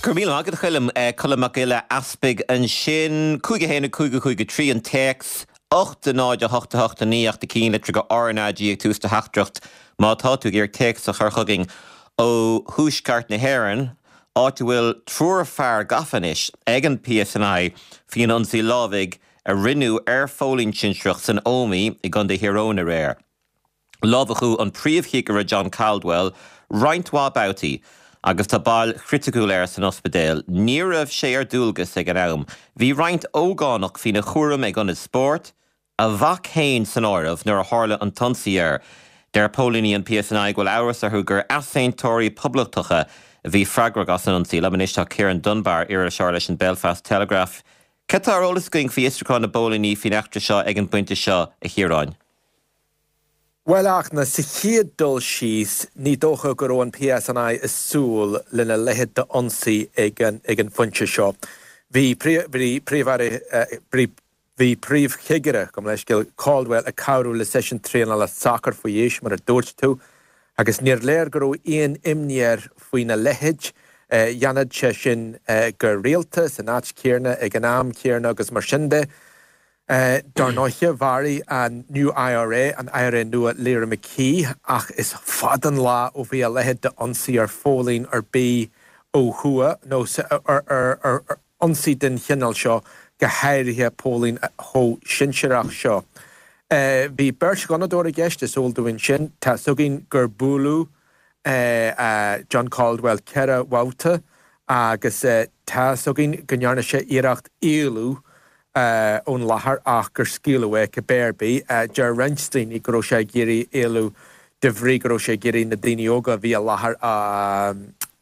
Go raibh míle maith agat, a Choilm. Colm Mac Giolla Easpaig ansin. 5 1 5 5 3 an téacs, 8 0 8 8 9 ach na cinnlitreacha RnaG ag tús do theachtaireacht má tá tú ag iarraidh téacs a chur chugainn ó thuaisceart na hÉireann, áit a bhfuil triúr fear gafa anois ag an PSNI faoin ionsaí lámhaigh a rinneadh ar phóilín sinsearach san Ómaigh i gContae Thír Eoghain aréir. Lámhachadh an príomhchigire John Caldwell roinnt mhaith babhtaí agus tá bail chriticiúil air san ospidéal. Ní raibh sé ar dualgas ag an am. Bhí roinnt ógánach faoina chúram ag ionad spóirt, a mhac féin san áireamh, nuair a tharla an t-ionsaí air. Deir póilíní an PSNI go bhfuil amhras orthu gur easaontóirí poblachtacha a bhí freagrach as an ionsaí. Liom anois tá Ciarán Dunbar, iriseoir leis an Belfast Telegraph. Cad tá ar eolas againn faoi fhiosrúchán na bpóilíní faoin eachtra seo ag an bpointe seo, a Chiaráin? Bhuel, a Fhachtna, sa chéad dul síos, ní dócha go raibh an PSNI ag súil lena leithéid d'ionsaí ag an phointe seo. Bhí Príomh-Aire, bhí Príomhchigire, gabh mo leithscéal, Caldwell ag cabhrú le seisiún traenála sacair faoi aois, mar a dúirt tú, agus níor léir go raibh aon imní air faoina leithéid. Dhéanadh sé sin go rialta, san áit chéanna, ag an am céanna agus mar sin de. Dar ndóiche, mharaigh an New IRA, an IRA Nua, Lyra McKee, ach is fada an lá ó bhí a leithéid d'ionsaí ar phóilín ar bith ó thuaidh, nó ar ionsaí den chineál seo, go háirithe póilín chomh sinsearach seo. Bhí beirt ghunnadóir i gceist, is eol dúinn sin. Tá 'fhios againn gur buaileadh John Caldwell 4 bhabhta agus tá 'fhios againn go ndearna sé iarracht éalú ón láthair ach gur scaoileadh é cibé ar bith. Deir roinnt daoine go raibh sé ag iarraidh éalú de bhrí go raibh sé ag iarraidh na daoine óga a bhí i láthair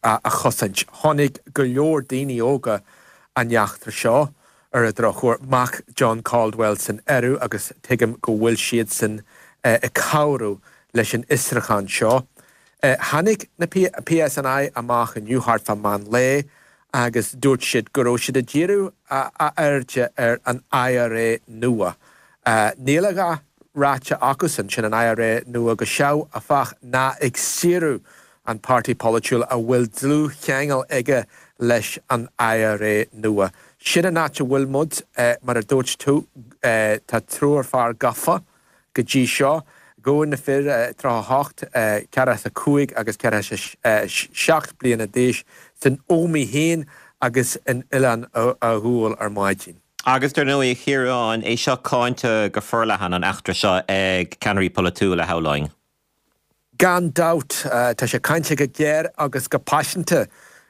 a chosaint. Chonaic go leor daoine óga an eachtra seo, ar an drochuair, mac John Caldwell san áireamh agus tuigim go bhfuil siadsan ag cabhrú leis an fhiosrúchán seo. Tháinig na PSNI amach inniu thart fá meán lae agus dúirt siad go raibh siad ag díriú a airde ar an IRA nua. Níl a dhath ráite acusan, sin an IRA nua go seoigh, áfach, ná ag saoradh an páirtí polaitiúil a bhfuil dlúthcheangal aige leis an IRA nua. Sin an áit a bhfuil muid, mar a dúirt tú, tá triúr fear gafa go dtí seo. Gabhadh na fir, 38, 45 agus 47 bliana d'aois, san Ómaigh féin agus in Oileán Ghuail ar maidin. Agus dar ndóigh, a Chiaráin, é seo cáinte go forleathan, an eachtra seo, ag ceannairí polaitiúla, shamhlóinn. Gan dabht, tá sé cáinte go géar agus go paiseanta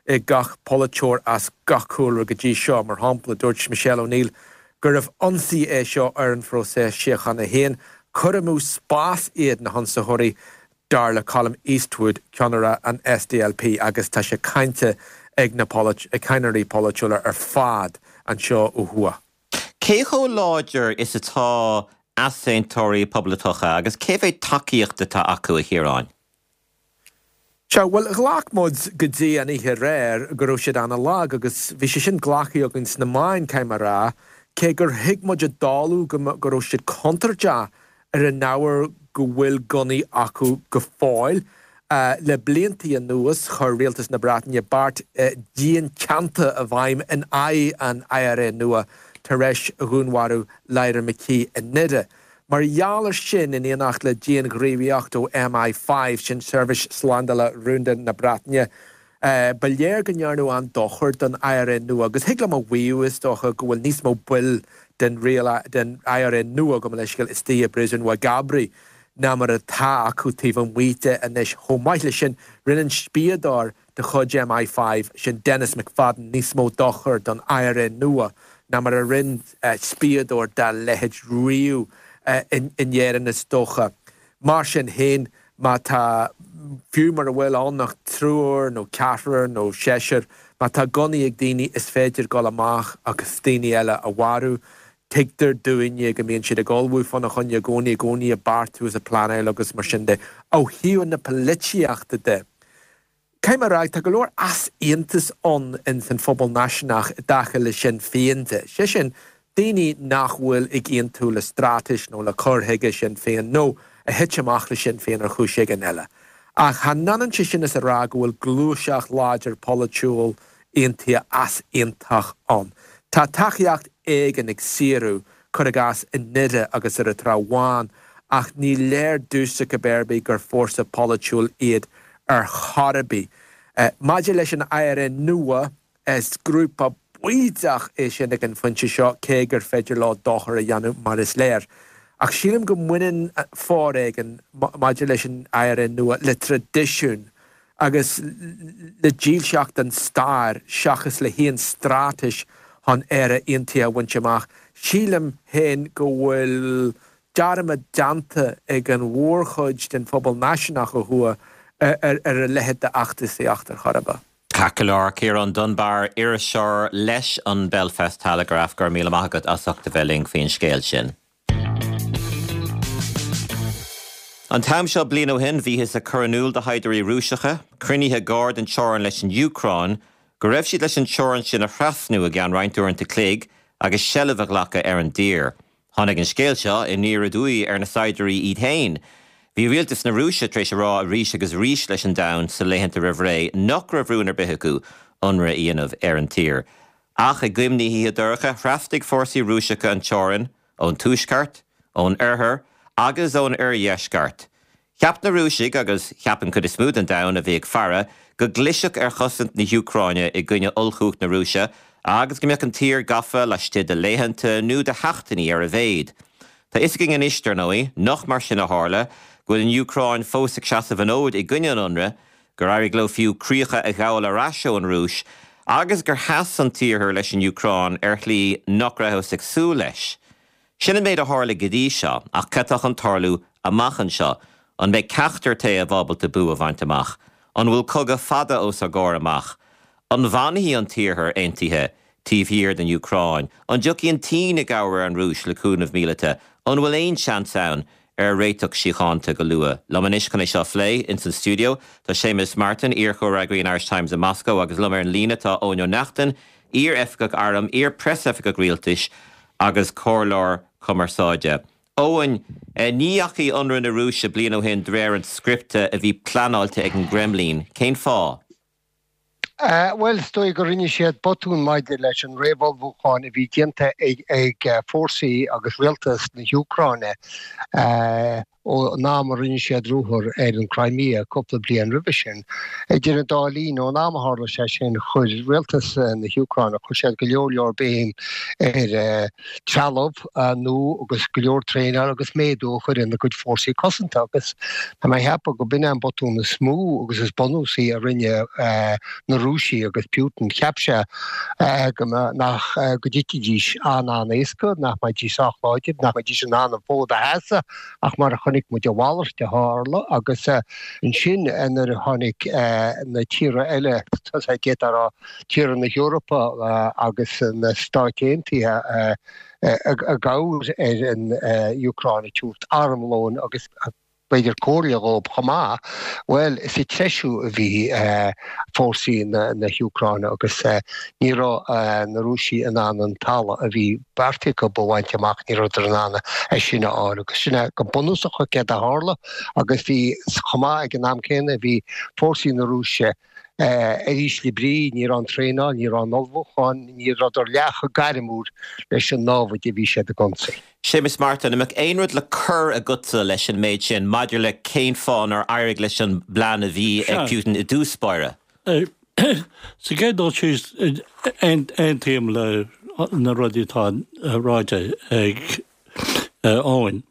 ag gach polaiteoir as gach cúlra go dtí seo. Mar shampla, dúirt Michelle O'Neill gurbh ionsaí é seo ar an phróiseas síochána féin. Cur amú spáis iad na hionsaitheoirí, dar le Colum Eastwood, ceannaire an SDLP, agus tá sé cáinte ag na ceannairí polaitiúla ar fad anseo ó thuaidh. Cé chomh láidir is atá easaontóirí poblachtacha agus cé mhéad tacaíocht atá acu, a Chiaráin? Sea, bhuel, ghlac muid go dtí an oíche aréir go raibh siad ana-lag agus bhí sé sin glactha againn sna meáin, caithfidh mé a rá, cé gur thuig muid i dtólamh go go raibh siad contúirteach ar an ábhar go bhfuil gunnaí acu go fóill. Le bliantaí anuas, chuir rialtas na Breataine beart dian teannta i bhfeidhm in aghaidh an IRA nua tar éis dhúnmharú Lyra McKee i nDoire. Mar gheall ar sin, in éineacht le dianghníomhaíocht ó MI5, sin seirbhís slándála rúnda na Breataine, Ba léir go ndearnadh an-dochar don IRA nua agus thig liom a mhaíomh, is dócha, go bhfuil níos mó baill den den IRA nua, gabh mo leithscéal, istigh i bpríosún Mhagh ná mar atá acu taobh amuigh de anois. Chomh maith leis sin, rinne an spiadóir de chuid MI5, sin Denis McFadden, níos mó dochair don IRA nua ná mar a rinne spiadóir dá leithéid riamh in Éirinn, is dócha. Mar sin féin, má tá, fiú mura bhfuil ann ach triúr nó ceathrar nó seisear, má tá gunnaí ag daoine is féidir dul amach agus daoine eile a mharú. Tuigtear dúinne go mbíonn siad ag ullmhú fána choinne i gcónaí, i gcónaí ag beartú is ag pleanáil agus mar sin de. Ó thaobh na polaitíochta de, Caithfidh mé a rá, tá go leor easaontas ann ins an phobal náisiúnach i dtaca le Sinn Féin de, sé sin, daoine nach bhfuil ag aontú le straitéis nó le cur chuige Shinn Féin nó a thit amach le Sinn Féin ar chúis éigin eile. Ach chan ionann sé sin is a rá go bhfuil gluaiseacht láidir polaitiúil Aontaithe easaontach ann. Tá tacaíocht éigin ag Saoradh, cuir i gcás, i nDoire agus ar an Trá Bháin, ach ní léir domhsa cibé ar bith gur fórsa polaitiúil iad ar chor ar bith. Maidir leis an IRA Nua, is grúpa baoideach é sin ag an phointe seo, cé gur féidir leo dochar a dhéanamh mar is léir. Ach sílim go mbaineann foréigean maidir leis an IRA Nua le traidisiún agus le dílseacht don stair seachas le haon straitéis chun Éire aontaithe a bhaint amach. Sílim féin go bhfuil dearmad déanta ag an mhórchuid den phobal náisiúnach ó thuaidh ar a leithéid d'fheachtasaíocht ar chor ar bith. Ceart go leor, Ciarán Dunbar, iriseoir leis an Belfast Telegraph, go raibh míle maith agat as ucht a bheith linn faoin scéal sin. An t-am seo bliain ó shin, bhíothas ag cur in iúl do shaighdiúirí Rúiseacha, cruinnithe gar don teorainn leis an Úcráin, go raibh siad leis an teorainn sin a thrasnú i gceann roinnt uaireanta cloig agus seilbh a ghlacadh ar an dtír. Tháinig an scéal seo aniar aduaidh ar na saighdiúirí iad féin. Bhí rialtas na Rúise tar éis a rá arís agus arís leis an domhan sa laethanta roimh ré nach raibh rún ar bith acu ionradh a dhéanamh ar an tír. Ach i gcoim na hoíche dorcha, thrasnaigh fórsaí Rúiseacha an teorainn ón tuaisceart, ón oirthear agus ón oirdheisceart. Cheap na Rúisigh, agus cheap an chuid is mó den domhan a bhí ag faire, go gclisfeadh ar chosaint na hÚcráine i gcoinne ollchumhacht na Rúise agus go mbeadh an tír gafa laistigh de laethanta nó de sheachtainí ar a mhéad. Tá fhios againn anois, dar ndóigh, nach mar sin a tharla, go bhfuil an Úcráin fós ag seasamh an fhóid i gcoinne an ionraidh, gur éirigh leo fiú críocha a ghabháil ar ais ón Rúis agus gur sheas an tIarthar leis an Úcráin ar shlí nach rabhthas ag súil leis. Sin an méid a tharla go dtí seo, ach cad tá chun tarlú amach anseo? An mbeidh ceachtar taobh ábalta bua a bhaint amach? An bhfuil cogadh fada os ár gcomhair amach? An bhfanfaidh an tIarthar aontaithe taobh thiar den Úcráin? An dtiocfaidh an tSín i gcabhair ar an Rúis le cúnamh míleata? An bhfuil aon seans ann ar réiteach síochánta go luath? Liom anois chun é seo a phlé ins an stiúideo tá Séamus Martin, iar-chomhfhreagraí an Irish Times i Moscó agus liom ar an líne tá Eoin Ó Neachtain, iar-oifigeach airm, iar-preasoifigeach rialtais agus comhairleoir cumarsáide. Eoin, ní dheachaigh ionradh na Rúise bliain ó shin de réir an scripte a bhí pleanáilte ag an gCreimlín. Cén fáth? Bhuel, is dóigh go rinne siad botún maidir leis an réamhullmhúchán a bhí déanta ag fórsaí agus rialtas na hÚcráine. Ón am a rinne siad ruathar ar an Crimea cúpla bliain roimhe sin. Idir an dá linn, ón am a tharla sé sin, chuir rialtas na hÚcráine, chuir siad go leor leor béim ar trealamh nua agus go leor traenáil agus méadú a chur ina gcuid fórsaí cosanta agus tá mé a cheapadh go b'in é an botún is mó agus is bunúsaí a rinne na Rúisigh agus Putin. Cheap sé go nach go dtitfidís an-an-éasca, nach mbeidís sách láidir, nach mbeidís in ann an fód a sheasamh. Ach mar a chonaic muid, a mhalairt a tharla agus ansin nuair a tháinig na tíortha eile, d'fhéadfá a rá tíortha na hEorpa agus na Stáit Aontaithe i gcabhair ar an Úcráin ag tabhairt armlóin agus b'fhéidir comhairle dhóibh chomh maith, bhuel, is ag treisiú a bhí fórsaí na hÚcráine agus ní raibh na Rúisigh in ann an talamh a bhí beartaithe acu a bhaint amach, ní rabhadar in ann é sin a fháil agus sin é go bunúsach céard a tharla agus bhí, chomh maith ag an am céanna, bhí fórsaí na Rúise ar ísle brí, ní raibh an traenáil, ní raibh an ullmhúchán, ní rabhadar leath chomh gairmiúil leis an námhaid a bhí siad ag ionsaí. Séamus Martin, an mbeadh aon rud le cur agatsa leis an méid sin maidir le cén fáth nár éirigh leis an bplean a bhí ag Putin i dtús báire? Sa gcéad dul síos, aontaím le na rudaí atá ráite ag Eoin.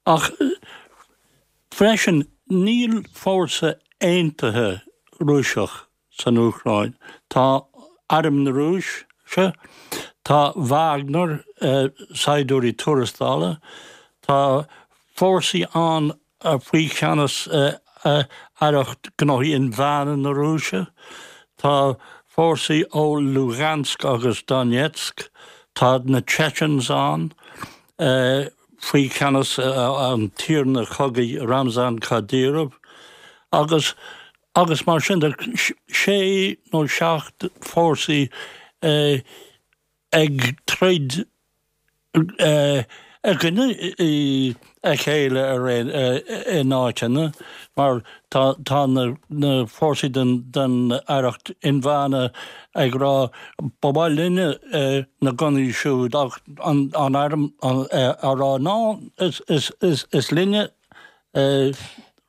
Ach freisin, níl fórsa aontaithe Rúiseach san Úcráin. Tá Arm na Rúise, tá Wagner, saighdiúirí tuarastála, tá fórsaí ann faoi cheannas Aireacht Gnóthaí Inmheánacha na Rúise, tá fórsaí ó Lugansk agus Donetsk, tá na Chechens ann faoi cheannas an tiarna cogaidh Ramzan Kadyrov agus agus mar sin de, sé nó seacht fórsaí ag troid. i gcoinne a chéile ar aon in áiteanna mar tá tá na na fórsaí den den aireacht inmheánach ag rá ba mhaith linne na gunnaí siúd ach an an arm á rá ná is is is is linne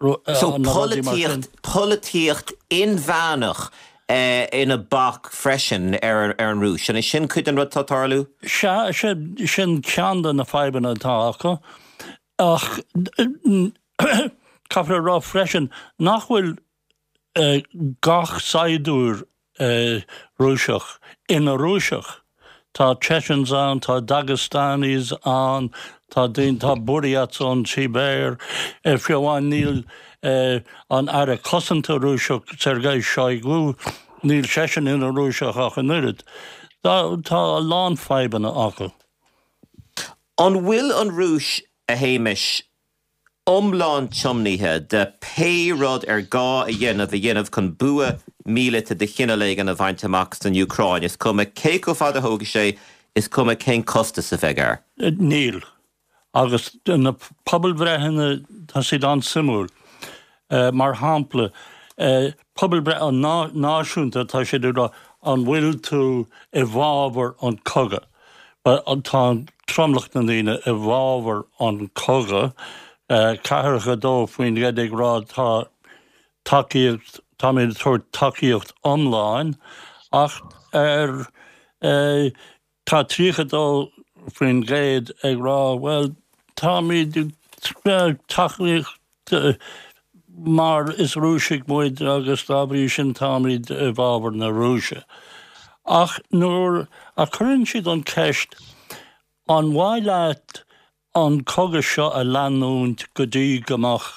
So polaitíocht, polaitíocht inmheánach ina bac freisin ar an Rúis. An é sin cuid den rud atá ag tarlú? Sea, sin ceann de na fadhbanna atá acu. Ach caithfear a rá freisin nach bhfuil gach saighdiúir Rúiseach ina Rúiseach. Tá Chechens ann, tá Dagestanis ann, tá daoine, tá Buryats ón tSibéir. Fiú amháin níl an Aire Cosanta Rúiseach, Sergei Shoigu, níl seisean ina Rúiseach ach an oiread. Tá a lán fadhbanna acu. An bhfuil an Rúis, a Shéamais, iomlán tiomnaithe de pé rud ar gá a dhéanamh a dhéanamh chun bua míleata de chineál éigin a bhaint amach san Úcráin, is cuma cé chomh fada a thógfaidh sé, is cuma cén costas a bheidh air. Níl. Agus na pobalbhreitheanna, tá siad an-suimiúil. Mar shampla, pobalbhreith náisiúnta, tá siad ag rá an bhfuil tú i bhfabhar an cogadh? Tá tromlach na ndaoine i bhfabhar an cogadh, 42% ag rá tá tacaíocht, táimid ag tabhairt tacaíocht iomlán, ach ar tá 32% ag rá bhuel táimid ag tacaíocht mar is Rúisigh muid agus dá bhrí sin táimid i bhfabhar na Rúise. Ach nuair a chuireann siad an cheist an mhaith leat an cogadh seo a leanúint go dtí go mbeadh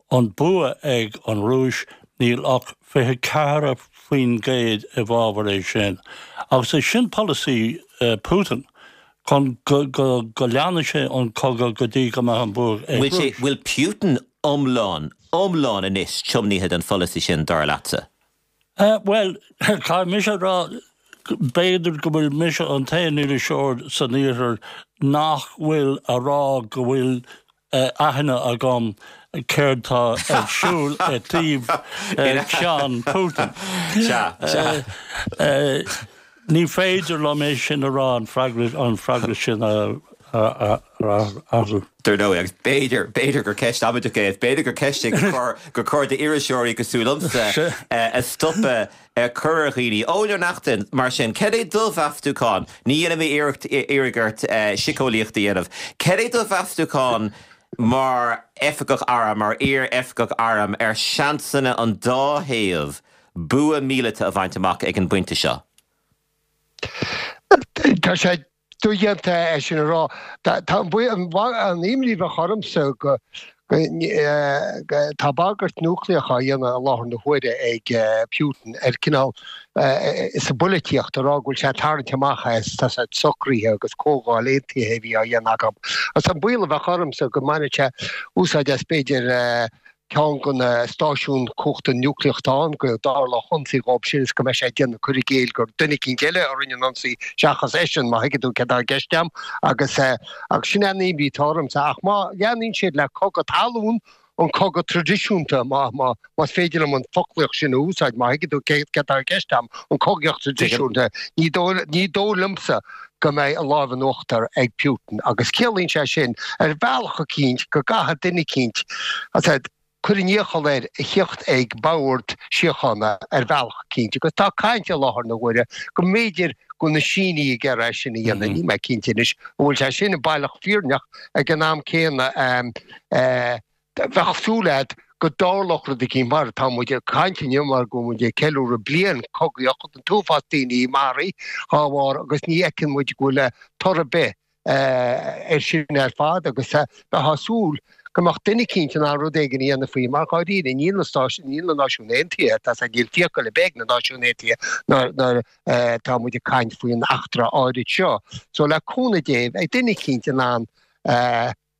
an bua ag an Rúis, níl ach 24% i bhfabhar é sin. Agus é sin polasaí Putin. chun go leanfaidh sé an cogadh go dtí go mbeidh an bua ag Bhfuil sé, bhfuil Putin iomlán, iomlán anois tiomnaithe don pholasaí sin, dar leatsa? Bhuel, caithfidh mise a rá, b'fhéidir go bhfuil mise an t-aon iriseoir san iarthar nach bhfuil a rá go bhfuil aithne agam céard tá ar siúl i dtaobh cheann Putin. Sea, sea. Ní féidir liom é sin a rá, an freagra, an freagra sin a athrú. Dar ndóigh, agus b'fhéidir, b'fhéidir gur ceist amaideach é, b'fhéidir gur ceist é gur chóir, gur chóir d'iriseoirí cosúil liomsa a stopadh ag cur ar dhaoine. Eoin Ó Neachtain, mar sin, cad é do mheastúchán? Ní dhéanfaidh mé iarracht iarraidh ort síceolaíocht a dhéanamh. Cad é do mheastúchán mar oifigeach airm, mar iar-oifigeach airm, ar sheansanna an dá thaobh bua míleata a bhaint amach ag an bpointe seo? Tá sé dodhéanta é sin a rá. Tá an imní a bheadh ormsa go tá bagairt núicléach á dhéanamh i láthair na huaire ag Putin ar cineál sa bpolaitíocht a rá go bhfuil sé ag tarraingt amach as tá sé socruithe agus comhdháil aontaithe a bhí á dhéanamh acu. Agus an baol a bheadh ormsa go mbainfeadh sé úsáid as b'fhéidir ceann de na stáisiúin cumhachta núicléach atá ann, go dtarlódh ionsaí dhóibh sin is go mbeidh sé ag déanamh cur i gcéill gur duine eicínt eile a rinne an ionsaí seachas eisean, má thuigeann tú céard atá i gceist agam. Agus agus sin é an imní atá ormsa. Ach má leanaíonn siad le cogadh talún, an cogadh traidisiúnta, má má más féidir liom an foclaíocht sin a úsáid, má thuigeann tú céard atá i gceist agam, an cogaíocht traidisiúnta, ní dóigh ní dóigh liomsa go mbeidh an lámh in uachtar ag Putin agus ciallaíonn sé sin ar bhealach eicínt go gcaithfidh duine eicínt cur an iachall air a thíocht ag bord síochána ar bhealach eicínt agus tá caint i láthair na huaire go mb'fhéidir go bhfuil na Sínigh ag iarraidh é sin a dhéanamh. Níl mé cinnte anois an bhfuil sé sin baileach fírinneach ag an am céanna. Bheadh súil agat go dtarlódh rud eicínt mar tá muid ag caint inniu mar go bhfuil muid ag ceiliúradh bliain cogaíocht an t-uafás daoine maraithe dhá bharr agus ní fheiceann muid go bhfuil toradh ar bith air sin ar fad agus bheifeá ag súil go mbeadh duine eicínt in ann rud éigin a dhéanamh faoi mar dháiríre níl na Stáit níl na Náisiúin Aontaithe tá a fhios agat níl fiacail ar bith ag na Náisiúin Aontaithe nuair atá muid ag caint faoin eachtra áirid seo. So le cúnamh Dé beidh duine eicínt in ann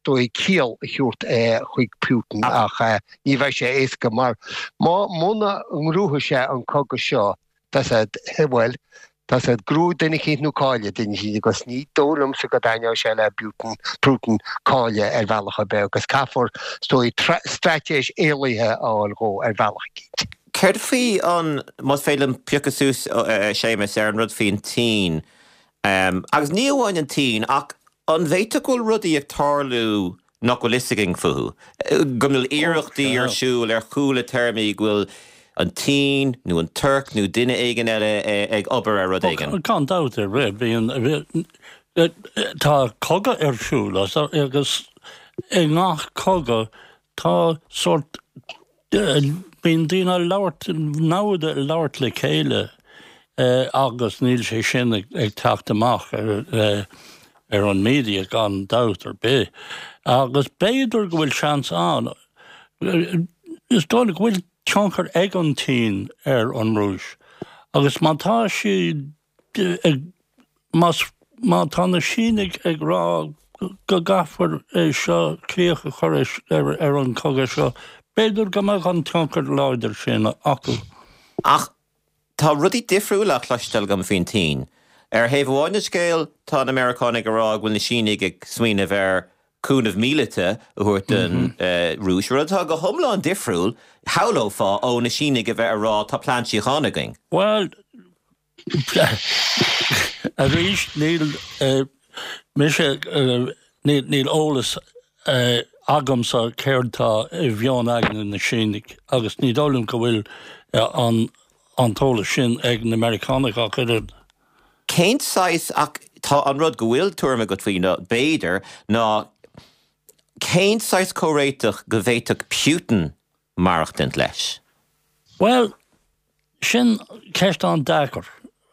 dóigh ciall a thabhairt chuig Putin ach ní bheidh sé éasca mar má muna ngnóthaíonn sé an cogadh seo tá a fhios agat bhuel. Tá a fhios agat, gnóthú duine eicínt nó cailleadh duine eicínt agus ní dóigh liomsa go dtaitneoidh sé le Putin, Putin cailleadh ar bhealach ar bith agus caithfear, is dóigh, straitéis éalaithe a fháil dhó ar bhealach eicínt. Céard faoi an, más féidir liom piocadh suas, a Shéamus, ar an rud faoin tSín, agus ní amháin an tSín ach an bhféadfadh go bhfuil rudaí ag tarlú nach bhfuil fhios againn fúthu, go bhfuil iarrachtaí ar siúl ar chúla téarmaí, go bhfuil an tSín nó an Tuirc nó duine éigin eile ag obair ar rud éigin. Gan dabht ar bith, bíonn, tá cogadh ar siúl agus i ngach cogadh tá sórt, bíonn daoine ag labhairt, namhad ag labhairt le chéile agus níl sé sin ag teacht amach ar ar an media gan dabht ar bith. Agus b'fhéidir go bhfuil seans ann, is dóigh go bhfuil tionchar ag an tSín ar an Rúis agus má tá siad ag, más, má tá na Sínigh ag rá go gcaithfear é seo, críoch a chur ar an chogadh seo, b'fhéidir go mbeadh an tionchar láidir sin acu. Ach Tá rudaí difriúla á chloisteáil agam faoin tSín. Ar thaobh amháin den scéal, tá na Meiriceánaigh ag rá go bhfuil na Sínigh ag smaoineamh ar cúnamh míleata a thabhairt don Rúis, rud atá go hiomlán difriúil, shamhlófá, ó na Sínigh a bheith ag rá tá plean síochána againn. Bhuel, arís, níl mise, níl eolas agamsa céard tá i mheon aigne na Sínigh agus ní dóigh liom go bhfuil an an t-eolas sin ag na Meiriceánaigh ach oiread. Cén saghas, ach tá an rud go bhfuil tuairim agat faoi nó b'fhéidir, ná cén saghas comhréiteach go bhféadfadh Putin maireachtaint leis? Bhuel, sin ceist an-deacair.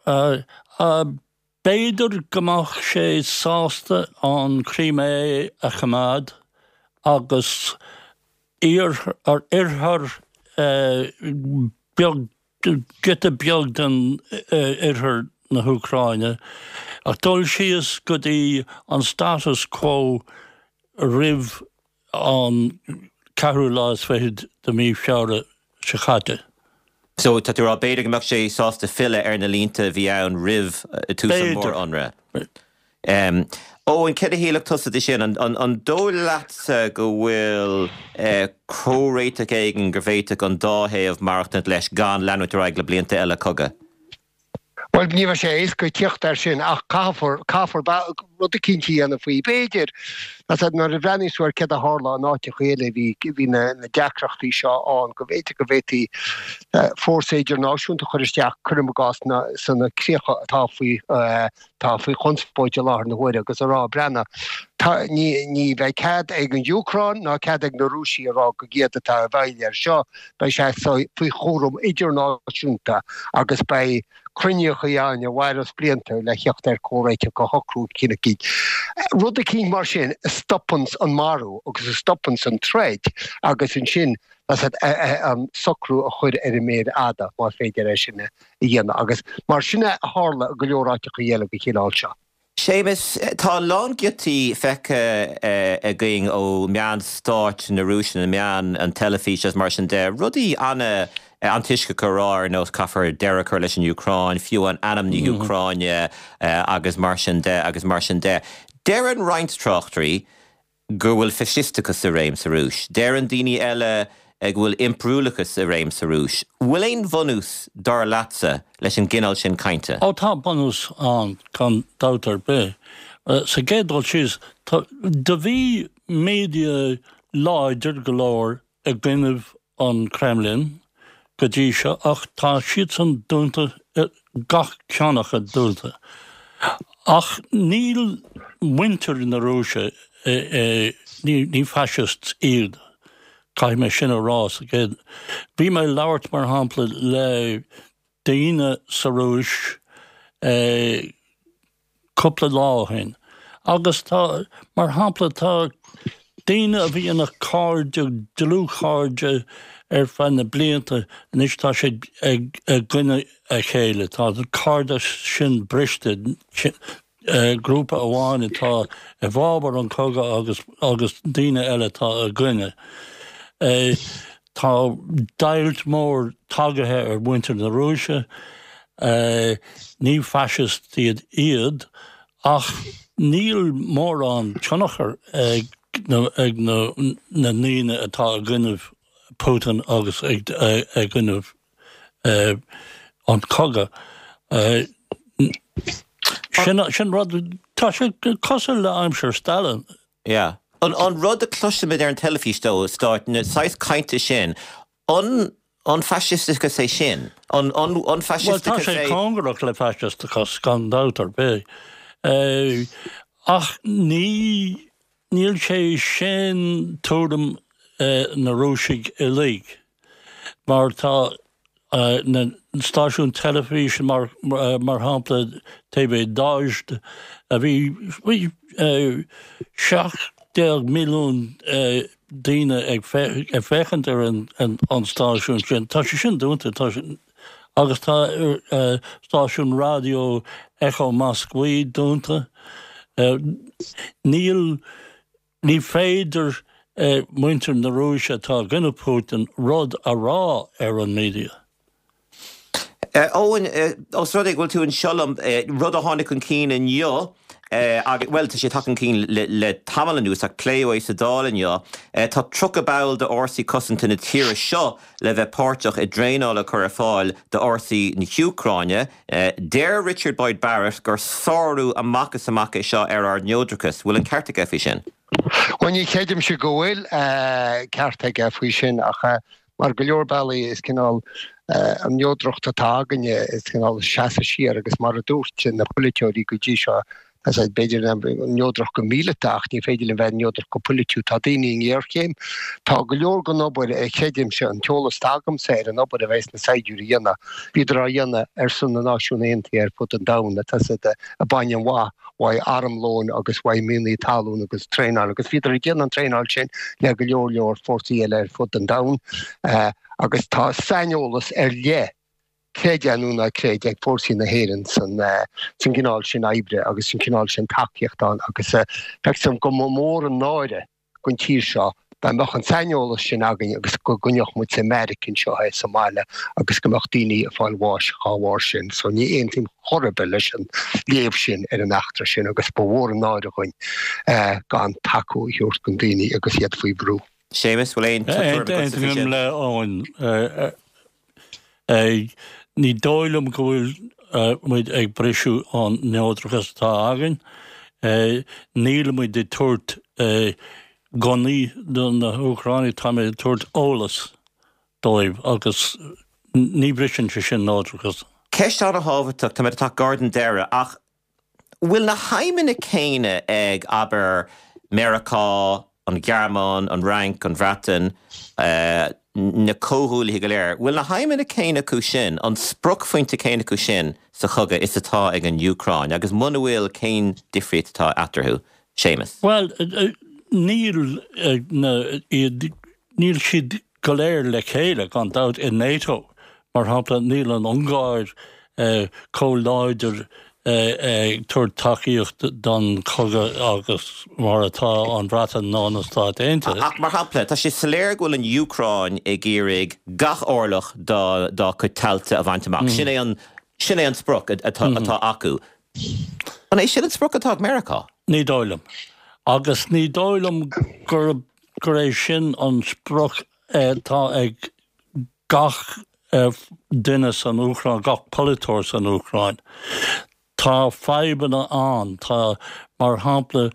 B'fhéidir go mbeadh sé sásta an Crimea a choimeád agus oirthear beag, giota beag den oirthear na hÚcráine, ach dul síos go dtí an status quo roimh an ceathrú lá is fichead de mhí Feabhra seo caite. So, tá tú a rá, b'fhéidir go mbeadh sé sásta filleadh ar na línte a bhí ann roimh tús an mhór-ionradh. B'fhéidir. Eoin, céard a shílfeadh tusa de sin? An dóigh leatsa go bhfuil comhréiteach éigin go bhféadfadh an dá thaobh maireachtaint leis gan leanúint ar aghaidh le blianta eile cogaidh? Bhuel, ní bheidh sé éasca tíocht air sin ach caithfear, caithfear rud eicínt a dhéanamh faoi. B'fhéidir, nuair a bhreathnaíos tú ar céard a tharla in áiteacha eile, bhí, bhí na deacrachtaí seo ann, go mb'fhéidir go bhféadfaí fórsa idirnáisiúnta a chur isteach, cuirim i gcás, sna críocha atá faoi, atá faoi chonspóid i láthair na huaire agus a rá, breathnaigh, tá, ní, ní bheidh cead ag an Úcráin ná cead ag na Rúisigh a rá gurb iad atá i bhfeighil air seo, Beidh sé faoi chúram idirnáisiúnta agus beidh cruinníochaí ann a mhairfeas blianta le theacht ar comhréiteach a shocrú eicínt. Rud eicínt mar sin a stopanns an marú agus a stopanns an troid agus ansin an socrú a chur ar an méar fhada más féidir é sin a dhéanamh agus mar sin a tharla i go leor áiteachaí eile den chineál seo. Séamus, tá a lán giotaí feicthe againn ó meáin stáit na Rúise, na meáin, an teilifís agus mar sin de, rudaí an-antoisceacha a rá ar nós caithfear deireadh a chur leis an Úcráin, fiú amháin ainm na hÚcráine agus mar sin de agus mar sin de. Deireann roinnt tráchtairí go bhfuil faisisteachas i réim sa Rúis. Deireann daoine eile go bhfuil impiriúlachas i réim sa Rúis. Bhfuil aon bhunús, dar leatsa, leis an gcineál sin cainte? Ó tá bunús ann, gan dabht ar bith. Sa gcéad dul síos, do bhí media láidir go leor i gcoinnibh an Kremlin go dtí seo ach tá siadsan dúnta, gach ceann acu dúnta. Ach níl muintir na Rúise, ní fascists iad, caithfidh mé sin a rá sa gcéad. Bhí mé ag labhairt, mar shampla, le daoine sa Rúis cúpla lá ó shin agus tá, mar shampla, tá daoine a bhí ina cairde, dlúthchairde ar feadh na blianta, anois tá siad i gcoinne a chéile, tá an cairdeas sin briste, grúpa amháin atá i bhfabhar an chogaidh agus agus daoine eile atá i gcoinne. Tá deighilt mór tagaithe ar mhuintir na Rúise. Ní faisist iad iad ach níl mórán tionchar ag na na ndaoine atá i gcoinnibh Putin agus i gcoinnibh an cogadh. Sin sin rud, tá sé cosúil le aimsir Stalin. Yeah. An rud a chloisimid ar an teilifís ó stáit, na saghas cainte sin, an an faisisteachas é sin? An an Bhuel, tá faisisteachas sé é? cóngarach le faisisteachas, gan dabht ar bith. Ach ní, níl sé sin tuairim na Rúisigh uilig, mar tá na stáisiúin teilifíse, mar mar shampla TV Dozhd, a bhí, bhí 17 milliún daoine ag féachaint ar an stáisiún sin. Tá sé sin dúnta, tá sé, agus tá stáisiún raidió Echo Moskvy dúnta. Níl, ní féidir muintir na Rúise atá i gcoinne Putin rud a rá ar an media. Eoin, os rud é go bhfuil tú anseo liom, rud a tháinig chun cinn inniu, agus, bhuel, tá sé tagtha chun cinn le tamall anuas ach pléadh é sa Dáil inniu, tá 30 ball d'fhórsaí cosanta na tíre seo le bheith páirteach i dtraenáil a chur ar fáil d'fhórsaí na hÚcráine. Deir Richard Boyd Barrett gur sárú amach is amach é seo ar ár neodrachas. Bhfuil an ceart aige faoi sin? Bhuel, ní chreidimse go bhfuil ceart aige faoi sin ach Mar go leor bealaí is cineál an neodracht atá againne, is cineál seasamh siar agus mar a dúirt na polaiteoirí go dtí seo, tá sé b'fhéidir neodrach go míleata ach ní féidir linn bheith neodrach go polaitiúil. Tá daoine i ngéarchéim. Tá go leor den obair, creidimse, an t-eolas atá agamsa ar an obair a bheas na saighdiúirí a dhéanamh, bhíodar á dhéanamh ar son na Náisiún Aontaithe ar fud an domhain, tá siad ag baint an mhaith uaidh armlóin agus uaidh mianaigh talún agus traenáil agus bhíodar ag déanamh an traenáil sin le go leor leor fórsaí eile ar fud an domhain agus tá saineolas ar leith, creid é nó ná creid, ag fórsaí na hÉireann san gcineál sin oibre agus san cineál sin tacaíocht ann agus feictear dom go mba mhór an náire don tír seo dá mbeadh an saineolas sin againn agus go gcoinneodh muid sa mbeairic anseo é sa mbaile agus go mbeadh daoine ag fáil bháis dhá bharr sin. So ní aontaím chor ar bith leis an léamh sin ar an eachtra sin agus ba mhór an náire dhuinn gan tacú a thabhairt don daoine agus iad faoi bhrú. Séamus, bhfuil aon tuairim agatsa faoi sin? Aontaím le Eoin. Ní dóigh liom go bhfuil muid ag briseadh an neodrachas atá againn. Níl muid ag tabhairt gunnaí do na hÚcránaigh, táimid ag tabhairt eolas dóibh agus ní bhriseann sé sin neodrachas. Ceist an-thábhachtach, táimid ag teacht gar don deireadh ach bhfuil na haidhmeanna céanna ag, abair, Meiriceá, an Ghearmáin, an Fhrainc, an Bhreatain, na comhghuaillithe go léir, bhfuil na haidhmeanna céanna acu sin, an spriocphointe céanna acu sin sa chogadh is atá ag an Úcráin agus muna bhfuil, cén difríocht atá eatarthu? Séamus. Bhuel, níl na, iad, níl siad go léir le chéile, gan dabht, i NATO. Mar shampla, níl an Ungáir chomh láidir ag tabhairt tacaíocht don chogadh agus mar atá an Bhreatain ná na Stáit Aontaithe. Ach mar shampla, tá sé soiléir go bhfuil an Úcráin ag iarraidh gach orlach dá dá cuid tailte a bhaint amach. Sin é an, sin é an sprioc atá atá acu. An é sin an sprioc atá ag Meiriceá? Ní dóigh liom. Agus ní dóigh liom gurb gur é sin an sprioc atá ag gach duine san Úcráin, gach polaiteoir san Úcráin. Tá fadhbanna ann. Tá, mar shampla,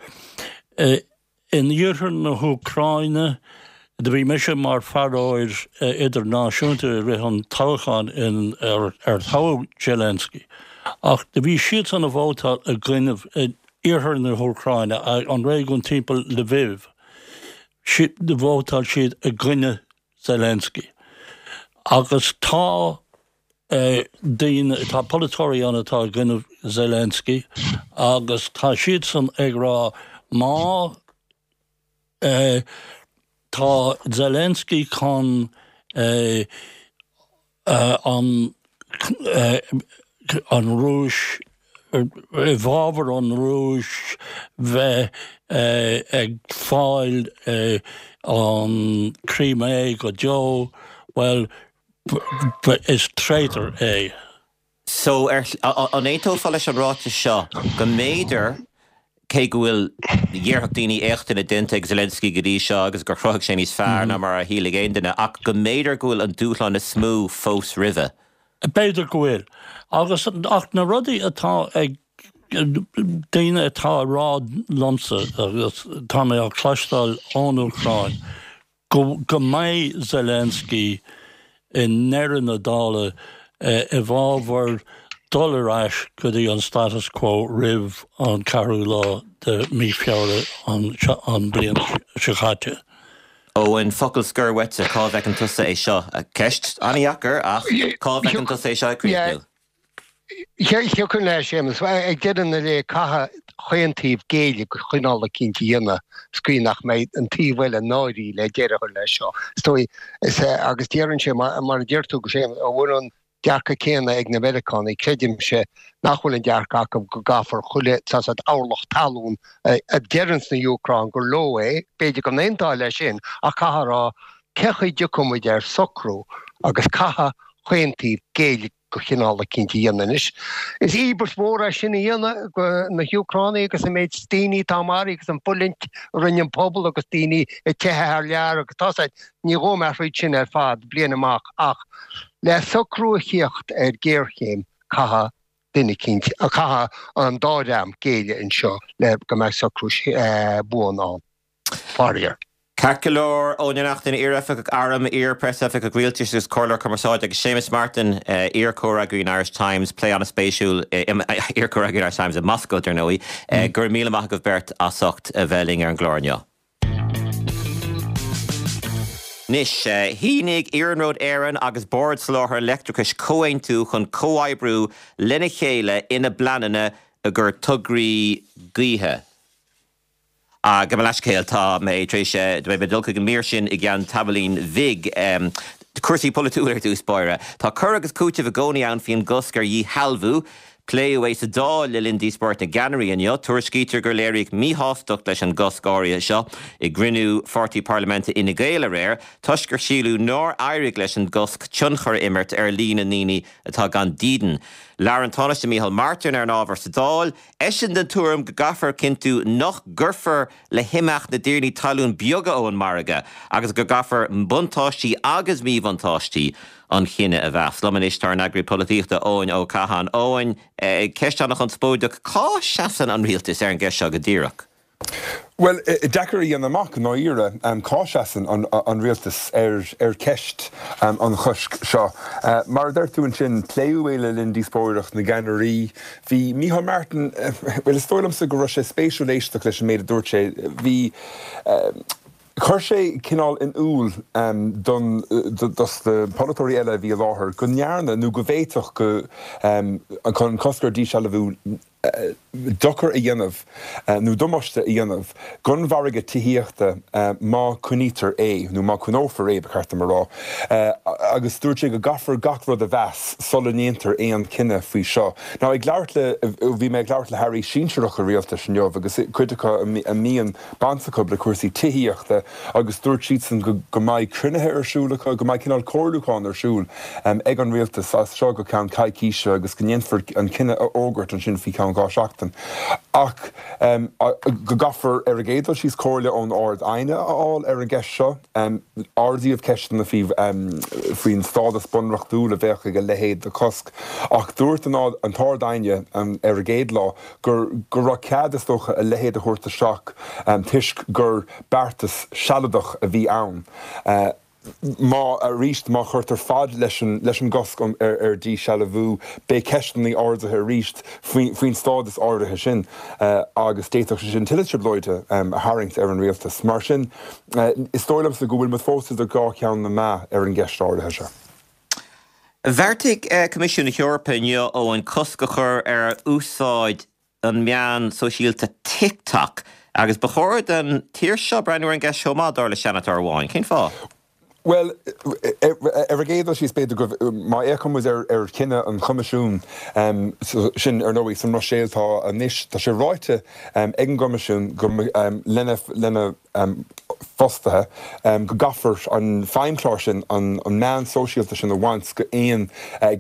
in iarthar na hÚcráine, do bhí mise mar faireoir idirnáisiúnta i rith an toghcháin in ar toghadh Zelensky, ach do bhí siadsan a vótáil i gcoinnibh iarthar na hÚcráine, an réigiún timpeall Lviv. Do vótáil siad i gcoinne Zelensky. Agus tá daoine, tá polaiteoirí ann atá i gcoinne Zelensky agus tá siadsan ag rá má tá Zelensky chun an an Rúis, i bhfabhar an Rúis bheith ag fáil an Crimea go deo, bhuel, is traitor é. So, ar, an aontófá leis an ráiteas seo go mb'fhéidir, cé go bhfuil, dhéarfadh daoine, éachtanna déanta ag Zelensky go dtí seo agus gur chruthaigh sé níos fearr ná mar a shílfeadh aon duine, ach go mb'fhéidir go bhfuil an dúshlán is mó fós roimhe? B'fhéidir go bhfuil. Agus, ach na rudaí atá ag daoine atá ag rá liomsa, agus tá mé á cloisteáil ón Úcráin, go go mbeidh Zelensky i ndeireadh na dála i bhfabhar dul ar ais go dtí an status quo roimh an ceathrú lá de mí Feabhra an bliain seo caite. Eoin, focal scoir uaitse, cá bhfeiceann tusa é seo? Ceist an-dheacair ach cá bhfeiceann tusa é seo ag críochnú? Thiocfadh leis, Séamus. Ag deireadh na lae, caithfidh chaon taobh géilleadh do chineál eicínt a dhéanamh sa gcaoi nach mbeidh an taobh eile náirithe le deireadh a chur leis seo. Is dóigh, is ea, agus déarfainnse, mar a deir tú, Séamus, an bhfuil an dearcadh céanna ag na Meiriceánaigh, creidimse nach bhfuil an dearcadh acu go gcaithfear chuile saghas orlach talún a deireanns na hÚcráin gur leo é, b'fhéidir go n-aontófá leis sin, ach caithfear a rá, cé chaoi dtiocfaidh muid ar socrú agus caithfidh chaon taobh géilleadh do chineál eicínt a dhéanamh anois. Is íobairt mhór é sin a dhéanamh do na hÚcránaigh agus an méid daoine atá maraithe agus an fulaingt a rinne an pobal agus daoine ag teitheadh thar lear agus tá said, ní ghabhfaidh mé thríd sin ar fad bliain amach ach le socrú a thíocht ar ghéarchéim caithfidh duine eicínt, caithfidh an dá dhream géilleadh anseo le go mbeidh socrú buan ann. Faraor. Ceart go leor, Eoin Ó Neachtain, iar-oifigeach airm, iar-phreasoifigeach rialtais agus comhairleoir cumarsáide agus Séamus Martin, iar-chomhfhreagraí an Irish Times, plé an-spéisiúil, iar-chomhfhreagraí an Irish Times i Moscó, dar ndóigh. Go raibh míle maith agaibh beirt as ucht a bheith linn ar an gclár inniu. Anois, shínigh Iarnród Éireann agus Bord Soláthair Leictreachais comhaontú chun comhoibriú lena chéile ina bpleananna i gcomhair tograí gaoithe. Gabh mo leithscéal, tá mé tar éis, beidh mé ag dul chuig an mír sin i gceann tamaillín bhig. Cúrsaí polaitiúla ar dtús báire. Tá cur agus cúiteamh i gcónaí ann faoin gcosc ar dhíshealbhú. Pléadh é sa Dáil le linn díospóireacht na gceannairí inniu. Tuairiscítear gur léiríodh míshástacht leis an gcosc áirithe seo i gcruinniú pháirtí parlaiminte Fhine Gael aréir toisc gur síleadh nár éirigh leis an gcosc tionchar a imirt ar líon na ndaoine atá gan dídean. Labhair an Tánaiste Micheál Martin ar an ábhar sa Dáil. Eisean den tuairim go gcaithfear cinntiú nach gcuirfear le himeacht na dtiarnaí talún beaga ón margadh agus go gcaithfear buntáistí agus míbhuntáistí an chinnidh a mheas. Liom anois tá ár n-eagraí polaitíochta Eoin Ó Catháin. Eoin, ceist an-chonspóideach, cá seasann an rialtas ar an gceist seo go díreach? Bhuel, deacair a dhéanamh amach i ndáiríre cá seasann an rialtas ar cheist an choisc seo. Mar a deir tú ansin, pléadh é le linn díospóireacht na gceannairí. Bhí Micheál Martin, bhuel, is dóigh liomsa go raibh sé spéisiúil éisteacht leis an méid a dúirt sé. Bhí, chuir sé cineál in iúl don, dos na polaiteoirí eile a bhí i láthair go ndearna nó go bhféadfadh go, an cosc ar dhíshealbhú, dochar a dhéanamh nó damáiste a dhéanamh don mhargadh tithíochta má coinnítear é, nó má coinneofar é, ba cheart dom a rá. Agus dúirt sé go gcaithfear gach rud a mheas sula ndéantar aon chinneadh faoi seo. Now, ag labhairt le, bhí mé ag labhairt le hairí sinsearacha rialtais inniu agus cuid acu a mbíonn baint acu le cúrsaí tithíochta agus dúirt siadsan go go mbeidh cruinnithe ar siúl acu, go mbeidh cineál comhairliúchán ar siúl ag an rialtas as seo go ceann coicíse agus go ndéanfar an cinneadh a fhógairt ansin faoi cheann 2 seachtain. Ach go gcaithfear ar an gcéad dul síos comhairle ón Ard-Aighne a fháil ar an gceist seo. Ardaíodh ceisteanna faoi faoin stádas bunreachtúil a bheadh ag a leithéid de chosc ach dúirt an tArd-Aighne ar an gcéad lá gur go raibh cead, is dócha, a leithéid a thabhairt isteach toisc gur beartas sealadach a bhí ann. Má, arís, má chuirtear fad leis an leis an gcosc ar dhíshealbhú, beidh ceisteanna ardaithe arís faoin stádas áirithe sin agus d'fhéadfadh sé sin tuilleadh trioblóide a tharraingt ar an rialtas. Mar sin, is dóigh liomsa go bhfuil muid fós idir dhá cheann na meá ar an gceist áirithe seo. Bheartaigh Coimisiún na hEorpa inniu, Eoin, cosc a chur ar úsáid an meán sóisialta TikTok agus ba chóir don tír seo breathnú ar an gceist chomh maith, dar le seanadóir amháin. Cén fáth? Bhuel, ar an gcéad dul síos, b'fhéidir go, má fhéachann muid ar chinneadh an Choimisiúin, sin, ar ndóigh, sa mBruiséil tá anois, tá sé ráite ag an gCoimisiún go, lena, lena. fostaithe, go gcaithfear an feidhmchlár sin, an meán sóisialta sin a bhaint de aon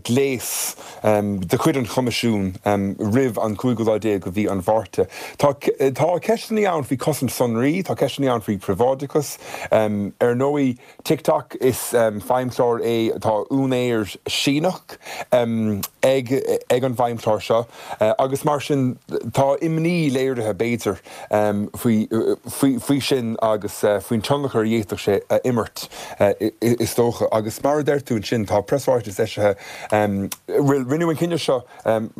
ghléas de chuid an Choimisiúin roimh an cúigiú lá déag de mhí an Mhárta. Tá ceisteanna ann faoi chosaint sonraí, tá ceisteanna ann faoi phríobháideachas. Ar ndóigh, TikTok, is feidhmchlár é, tá úinéir Síneach ag ag an bhfeidhmchlár seo agus mar sin tá imní léirithe, b'fhéidir, faoi faoi sin agus faoin tionchar a d'fhéadfadh sé a imirt, is dócha. Agus mar a deir tú ansin, tá preasráiteas eisithe, bhuel, rinneadh an cinneadh seo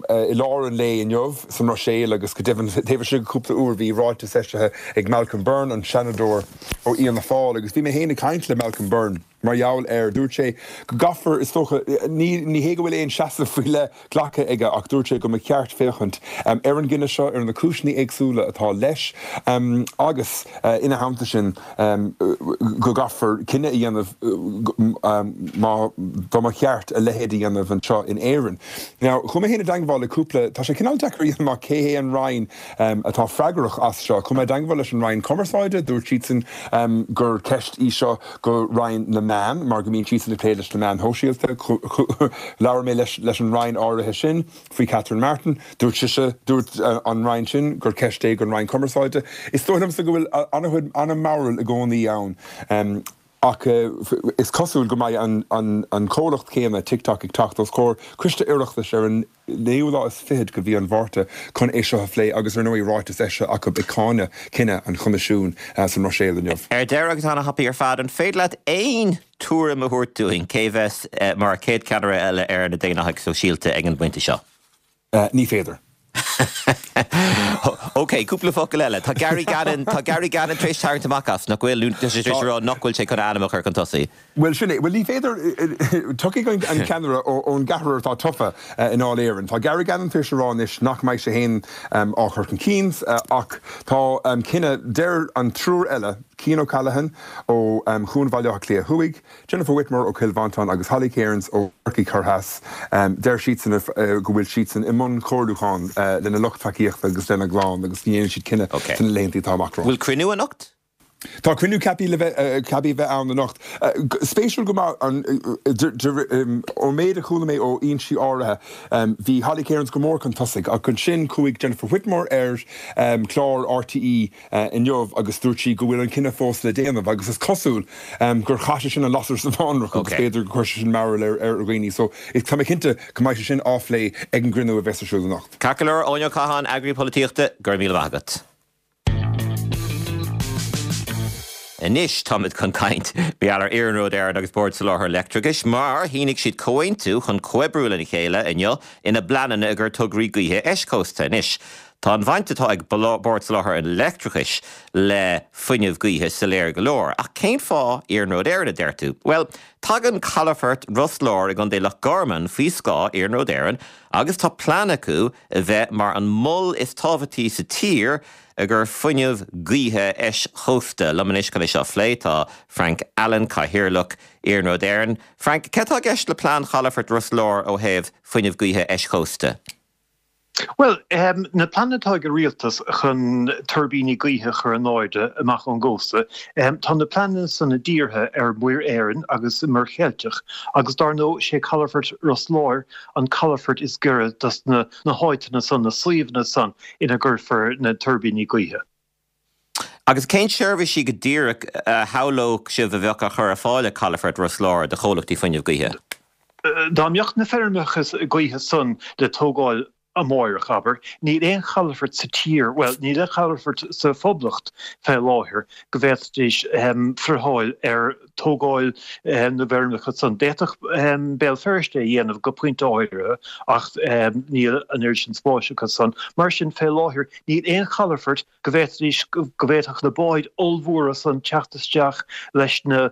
i lár an lae inniu sa mBruiséil agus go deimhin taobh istigh de chúpla uair bhí ráiteas eisithe ag Malcolm Byrne, an Seanadóir ó Fhianna Fáil, agus bhí mé féin ag caint le Malcolm Byrne mar gheall air. Dúirt sé go gcaithfear, is dócha, ní ní hé go bhfuil aon seasamh faoi leith glactha aige ach dúirt sé go mba cheart féachaint ar an gcinneadh seo, ar na cúiseanna éagsúla atá leis agus ina theannta sin go gcaithfear cinneadh a dhéanamh má dá mba cheart a leithéid a dhéanamh anseo in Éirinn. Now, chuaigh mé féin i dteangmháil le cúpla, tá sé cineál deacair a dhéanamh amach cé hé an Roinn atá freagrach as seo. Chuaigh mé i dteangmháil leis an Roinn Cumarsáide, dúirt siadsan gur ceist í seo go Roinn na Meán mar go mbíonn siadsan ag plé leis na meáin shóisialta. Labhair mé leis an Roinn áirithe sin. Faoi Catherine Martin, dúirt sise, dúirt an Roinn sin gur ceist é don Roinn Cumarsáide. Is dóigh liomsa go bhfuil an-chuid, an-mhearbhall i gcónaí ann ach is cosúil go mbeidh an comhlacht céanna, TikTok, ag teacht os comhair Coiste Oireachtais ar an naoú lá is fichead de mhí an Mhárta chun é seo a phlé agus ar ndóigh ráiteas eisithe acu ag cáineadh cinneadh an Choimisiúin sa mBruiséil inniu. Ar deireadh agus ana-thapaidh ar fad, an féidir leat aon tuairim a thabhairt dúinn cé bheas mar chéad cheannaire eile ar na Daonlathaigh Sóisialta ag an bpointe seo? Ní féidir. Ok, cúpla focal eile. Tá Gary Gannon, tá Gary Gannon tar éis tarraingt amach as, nach bhfuil? Nó tá sé tar éis a rá nach bhfuil sé chun a ainm a chur chun tosaigh. Bhuel, sin é. Bhuel, ní féidir, tiocfaidh an ceannaire ón gceathrar atá tofa i nDáil Éireann. Tá Gary Gannon tar éis a rá anois nach mbeidh sé féin á chur chun cinn ach tá cinneadh, deir an triúr eile, Cian O'Callaghan ó Chuan Bhaile Átha Cliath Thuaidh, Jennifer Whitmore ó Chill Mhantáin agus Holly Cairns ó Chorcaigh Thoir Theas, deir siadsan go bhfuil siadsan i mbun comhairliúchán lena lucht tacaíochta agus lena gclann agus go ndéanfaidh siad cinneadh sna laethanta atá amach romhainn. Bhfuil cruinniú anocht? Tá cruinniú ceaptha le bheith ceaptha a bheith ann anocht. Spéisiúil go maith, ón méid a chuala mé ó fhoinsí áirithe, bhí Holly Cairns go mór chun tosaigh ach ansin chuaigh Jennifer Whitmore ar chlár RTÉ inniu agus dúirt sí go bhfuil an cinneadh fós le déanamh agus is cosúil gur chaith sé sin an lasair sa bhfánrach agus b'fhéidir gur chuir sé sin mearbhall ar dhaoine so tá mé cinnte go mbeidh sé sin á phlé ag an gcruinniú a bheas ar siúl anocht. Ceart go leor, Eoin Ó Catháin, Eagraí Polaitíochta, go raibh míle maith agat. Anois táimid chun caint mar gheall ar Iarnród Éireann agus Bord Soláthair Leictreachais mar shínigh siad comhaontú chun comhoibriú lena chéile inniu ina bpleananna i gcomhair tograí gaoithe eischósta. Anois Tá an bhaint atá ag Bord Soláthair an Leictreachais le fuinneamh gaoithe soiléir go leor, ach cén fáth Iarnród Éireann, a deir tú? Bhuel, tagann calafort Ros Láir i gContae Loch Garman faoi scáth Iarnród Éireann agus tá plean acu a bheith mar an mol is tábhachtaí sa tír i gcomhair fuinneamh gaoithe eischósta. Liom anois chun é seo a phlé tá Frank Allen, Cathaoirleach Iarnród Éireann. Frank, céard atá i gceist le plean chalafort Ros Láir ó thaobh fuinneamh gaoithe eischósta? Bhuel, na pleananna atá ag an rialtas chun tuirbíní gaoithe a chur in airde amach ón gcósta, tá na pleananna san dírithe ar Mhuir Éireann agus an Mhuir Cheilteach agus dar ndóigh sé calafort Ros Láir an calafort is giorra dos na háiteanna san, na suíomhanna san ina gcuirfear na tuirbíní gaoithe. Agus cén seirbhísí go díreach a shamhlódh sibh a bheadh á chur ar fáil ag Calafort Ros Láir do chomhlachtaí fuinnimh gaoithe? Dá mbeadh na feirmeacha gaoithe san le tógáil amáireach, abair, níl aon chalafort sa tír, bhuel, níl aon chalafort sa Phoblacht fé láthair go bhféadfaidís friotháil ar tógáil na bhfeirmeacha san. D'fhéadfadh Béal Feirste é a dhéanamh go pointe áirithe ach níl an oiread sin spáis acu san. Mar sin, fé láthair, níl aon chalafort go bhféadfaidís, go bhféadfadh na báid ollmhóra san teacht isteach leis na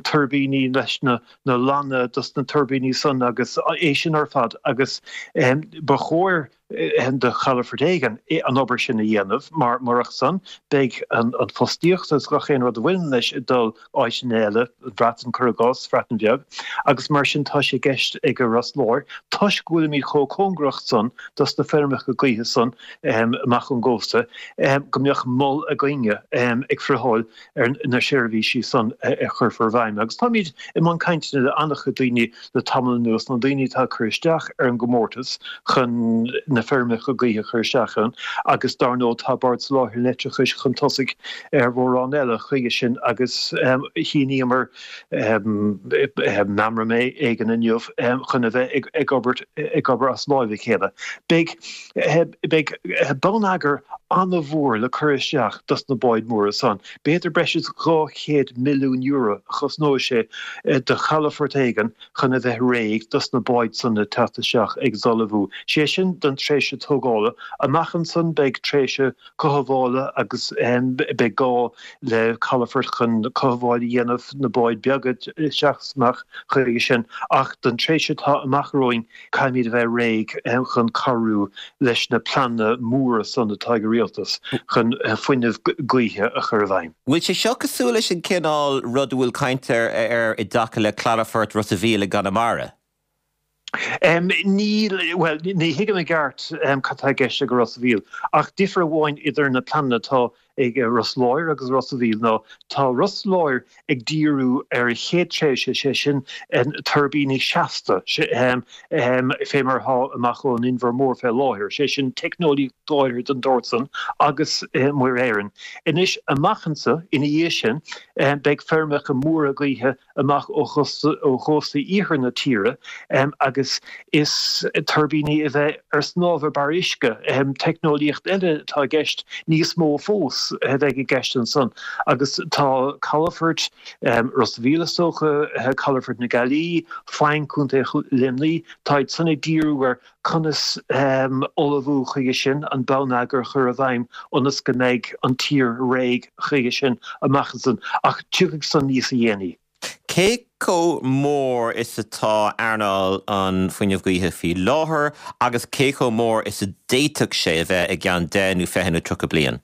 tuirbíní, leis na lanna dos na tuirbíní san agus é sin ar fad agus ba chóir. Do chalafort éigin an obair sin a dhéanamh, mar murach san, beidh an fostaíocht agus gach aon rud a bhaineann leis ag dul áiteanna eile, an Bhreatain, cuir i gcás, Bhreatain Bheag, agus mar sin tá sé i gceist ag Ros Láir, toisc go bhfuilimid chomh cóngarach san dos na feirmeacha gaoithe san amach ón gcósta, go mbeadh mol againne ag friotháil ar na seirbhísí san a chuirfear i bhfeidhm. Agus táimid i mbun cainteanna le an-chuid daoine le tamall anuas, na daoine atá ag cur isteach ar an gcomórtas chun na feirmeacha gaoithe a chur isteach ann agus dar ndóigh tá Bord Soláthair an Leictreachais chun tosaigh ar mhórán eile chuige sin agus shíníomar meamram éigin inniu chun a bheith ag obair ag obair as láimh a chéile. Beidh beidh bonneagar an-mhór le cur isteach dos na báid mhóra san. B'fhéidir breis is €200 milliún a chosnóidh sé do chalafort éigin chun a bheith réidh dos na báid san le teacht isteach agus ullmhú. Sé sin don tréimhse tógála. Amach ansan beidh tréimhse cothabhála agus beidh gá le calafort chun cothabháil a dhéanamh na báid beaga isteach is amach chuige sin. Ach don tréimhse atá amach romhainn Caithfimid a bheith réidh chun cabhrú leis na pleananna móra san atá ag an Rialtas chun fuinneamh gaoithe a chur i bhfeidhm. Bhfuil sé seo cosúil leis an cineál rud a bhfuil caint air i dtaca le Cladafort Ros a' Mhíl i gConamara? Níl, bhuel, ní thuigim i gceart cad tá i gceist ag Ros a' Mhíl, ach difear amháin idir na pleananna atá ag Ros Láir agus Ros a' Mhíl ná tá Ros Láir ag díriú ar an chéad tréimhse, sé sin tuirbíní seasta, fé mar atá amach ón Inbhear Mór fé láthair, sé sin teicneolaíocht áirithe den tsórt san agus i Muir Éireann. Anois amach anso ina dhiaidh sin beidh feirmeacha móra gaoithe amach ó chósta iarthar na tíre agus is tuirbíní a bheidh ar snámh ar barr uisce, teicneolaíocht eile atá i gceist, níos mó fós a bheidh i gceist ansan agus tá calafoirt Ros a' Mhíl is dócha, calafort na Gaillimhe, Faing, Contae Luimnigh, táid san ag díriú ar Conas ullmhú chuige sin, an bonneagar a chur i bhfeidhm ionas go mbeidh an tír réidh chuige sin amach ansan, ach tiocfaidh san níos a dhéanaí. Cé chomh mór is atá earnáil an fuinnimh gaoithe faoi láthair agus cé chomh mór is a d'fhéadfadh sé a bheith i gceann 10 nó 20 nó 30 bliain?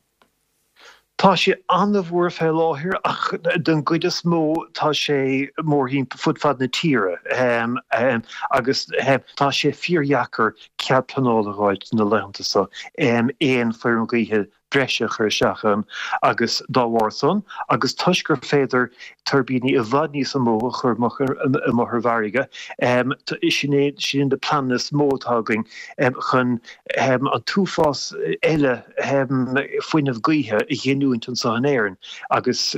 Tá sé an-mhór fé láthair ach don gcuid is mó tá sé mórthimpeall fud fad na tíre agus tá sé fíordheacair cead pleanála a dh'fháilt na laethanta so aon feirm ghaoithe breise a chur isteach ann agus dá bharr san agus toisc gur féidir tuirbíní i bhfad níos mó a chur amuigh ar an bhfarraige sin é sin na pleananna is mó atá againn chun an t-uafás eile fuinneamh gaoithe a ghiniúint anseo in Éirinn agus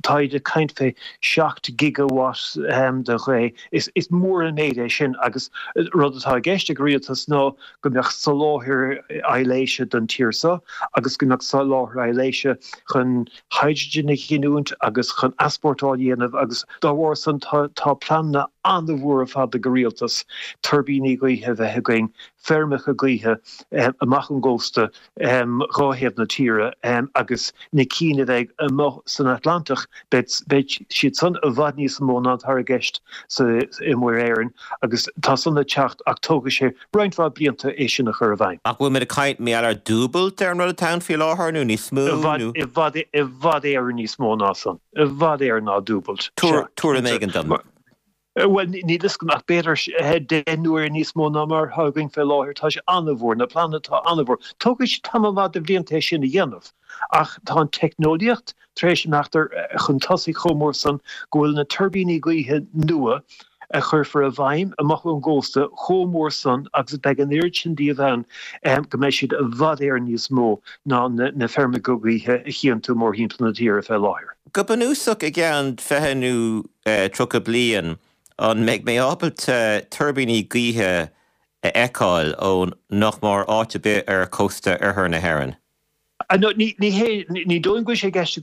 táid ag caint fé 7 gigawatt de ghaoth. Is mór an méid é sin agus rud atá i gceist ag an rialtas ná go mbeadh soláthar aibhléise don tír seo agus go mbeadh soláthar aibhléise chun hydrogen a ghiniúint agus chun easpórtáil a dhéanamh agus dá bharr san tá pleananna an-mhór ar fad ag an rialtas tuirbíní gaoithe a bheith againn feirmeacha gaoithe amach ón gcósta dhá thaobh na tíre agus na cinn a bheidh amuigh san Atlantach, beidh siad san i bhfad níos mó ná atá i gceist i Muir Éireann agus tá san ag teacht ach tógfaidh sé roinnt mhaith blianta é sin a chur i bhfeidhm. Ach bhfuil muid ag caint mar gheall ar dúbailt ar an rud atá ann faoi láthair nó níos mó nó? I bhfad, i bhfad Éireann níos mó ná san. I bhfad Éireann ná dúbailt. Tabhair tuairim éigin dom. Bhuel, níl fhios agam ach b'fhéidir 10 n-uaire níos mó ná mar atá againn fé láthair. Tá sé an-mhór, na pleananna atá an-mhór. Tógfaidh sé tamall maith de bhlianta é sin a dhéanamh ach tá an teicneolaíocht tar éis imeacht chun tosaigh chomh mór san go bhfuil na tuirbíní gaoithe nua a chuirfear i bhfeidhm amach ón gcósta chomh mór san agus beidh an oiread sin díobh ann go mbeidh siad i bhfad Éireann níos mó ná na feirmeacha gaoithe a chíonn tú mórthimpeall na tíre fé láthair. Go bunúsach, i gceann 20 nó 30 bliain, an mbeidh mé ábalta tuirbíní gaoithe a fheiceáil ó nach mór áit ar bith ar chósta oirthear na hÉireann? Ní hé, ní dóigh liom go bhfuil sé i gceist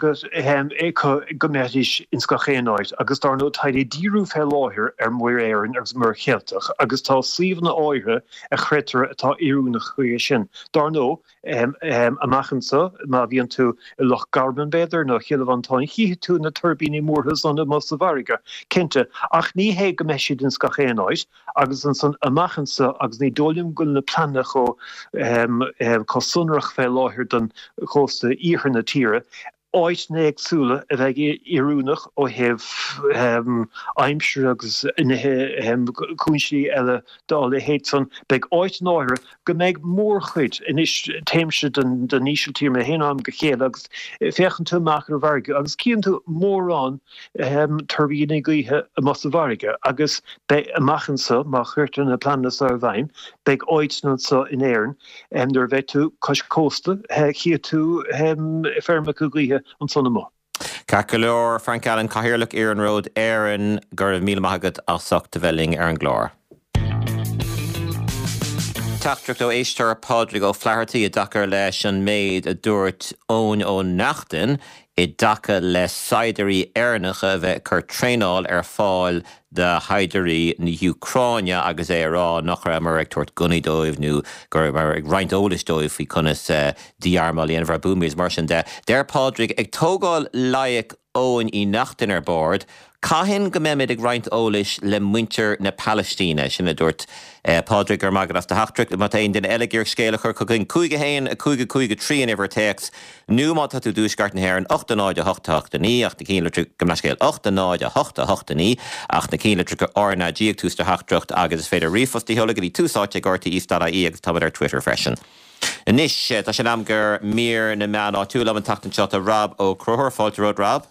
acu go mbeidís ins gach aon áit agus dar ndóigh táid ag díriú fé láthair ar Mhuir Éireann agus Muir Cheilteach agus tá suíomhanna áirithe a chreidtear atá oiriúnach chuige sin. Dar ndóigh, amach anso, má bhíonn tú i Loch Garman b'fhéidir nó Chill Mhantáin chífidh tú na tuirbíní mórtha san amuigh sa bhfarraige, cinnte, ach ní hé go mbeidh siad ins gach aon áit. Agus ansan amach anso, agus ní dóigh liom go bhfuil na pleananna chomh sonrach fé láthair don chósta iarthar na tíre, áiteanna éagsúla a bheidh oiriúnach ó thaobh aimsire agus nithe, cúinsí eile dá leithéid san. Beidh áiteanna áirithe go mbeidh mórchuid, anois téimse don Ísiltír mé féin ó am go chéile agus féachann tú amach ar an bhfarraige agus cíonn tú mórán tuirbíní gaoithe amuigh sa bhfarraige agus beidh amach anso, má chuirtear na pleananna so i bhfeidhm, beidh áiteanna anso in Éirinn nuair a bheidh tú cois cósta, chífidh tú feirmeacha gaoithe ansan amuigh. Ceart go leor, Frank Allen, Cathaoirleach Iarnród Éireann, go raibh míle maith agat as ucht a bheith linn ar an gclár. Teachtaireacht ó éisteoir Pádraig Ó Flathartaigh i dtaca leis an méid a dúirt Eoin Ó Neachtain i dtaca le saighdiúirí Éireannacha a bheith ag cur traenáil ar fáil do shaighdiúirí na hÚcráine agus é ag rá nach rabhamar ag tabhairt gunnaí dóibh nó go rabhamar ag roinnt eolais dóibh faoi conas dí-armáil a dhéanamh ar buamaí is mar sin de. Deir Pádraig, ag tógáil loighic Eoin Uí Neachtain ar bord, Cathain go mbeimid ag roinnt eolais le muintir na Palaistíne? Sin a dúirt Pádraig. Go raibh maith agat as do theachtaireacht. Má tá aon duine eile ag iarraidh scéal a chur chugainn, 5 1 5 5 3 an uimhir téacs, nó má tá tú i dtuaisceart na hÉireann, 8 0 8 8 9, ach na cinnlitreacha, gabh mo leithscéal, 8 0 8 8 9, ach na cinnlitreacha RnaG ag tús do theachtaireacht agus is féidir ríomhphost a sheoladh go dtí tús áite ag rte.ie agus táimid ar Twitter freisin. Anois, tá sé in am do mhír na meán áitiúil. Liom an tseachtain seo tá Rob Ó Conchúir. Fáilte romhat, Rob.